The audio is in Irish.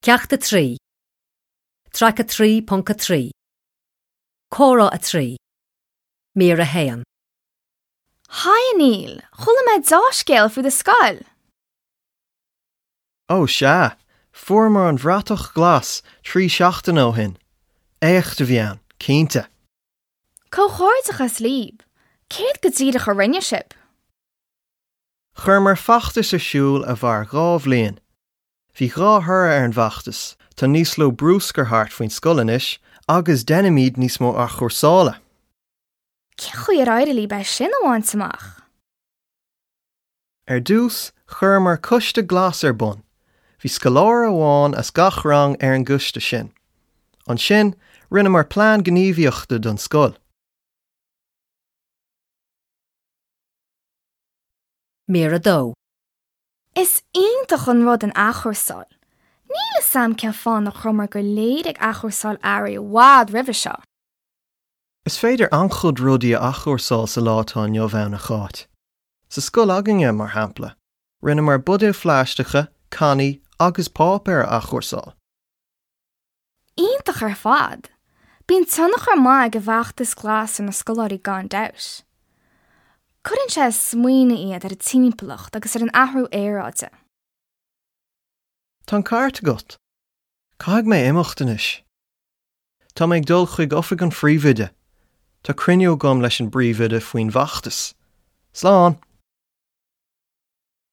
Ceacht 3, Traic 3.3, Comhrá 3, Mír 1. Haigh a Neil, chuala mé deá-scéal faoi do scoil! Ó sea, fuaireamar an bhratach ghlas 3 seachtaine ó shin. Éacht a bhí ann, cinnte. Comhghairdeachas libh! Céard go díreach a rinne sibh? Chuireamar feachtas ar siúl a mhair 2 bhliain. Bhí 2 thoradh ar an bhfeachtas, tá níos lú brúscair thart faoin scoil anois agus deinimid níos mó athchúrsála. Cén chaoi ar éirigh libh é sin a bhaint amach? Ar dtús, chuireamar coiste glas ar bun. Bhí scoláire amháin as gach rang ar an gcoiste sin. Ansin, rinneamar plean gníomhaíochta don scoil. Mír 2. Is iontach an rud an athchúrsáil. Níl 'fhios a'm cén fáth nach rabhamar go léir ag athchúrsáil earraí i bhfad roimhe seo. Is féidir an-chuid rudaí a athchúrsáil sa lá atá inniu ann, a Cháit. Sa scoil againne, mar shampla, rinneamar buidéil phlaisteacha, cannaí agus páipéar a athchúrsáil. Iontach ar fad! Bíonn tionchar maith ag an bhfeachtas glas ar na scoláirí gan dabht. Cuireann sé ag smaoineamh iad ar an timpeallacht agus ar an athrú aeráide. Tá an ceart agat. Caithfidh mé imeacht anois. Tá mé ag dul chuig oifig an phríomhoide. Tá cruinniú agam leis an bpríomhoide faoin bhfeachtas. Slán!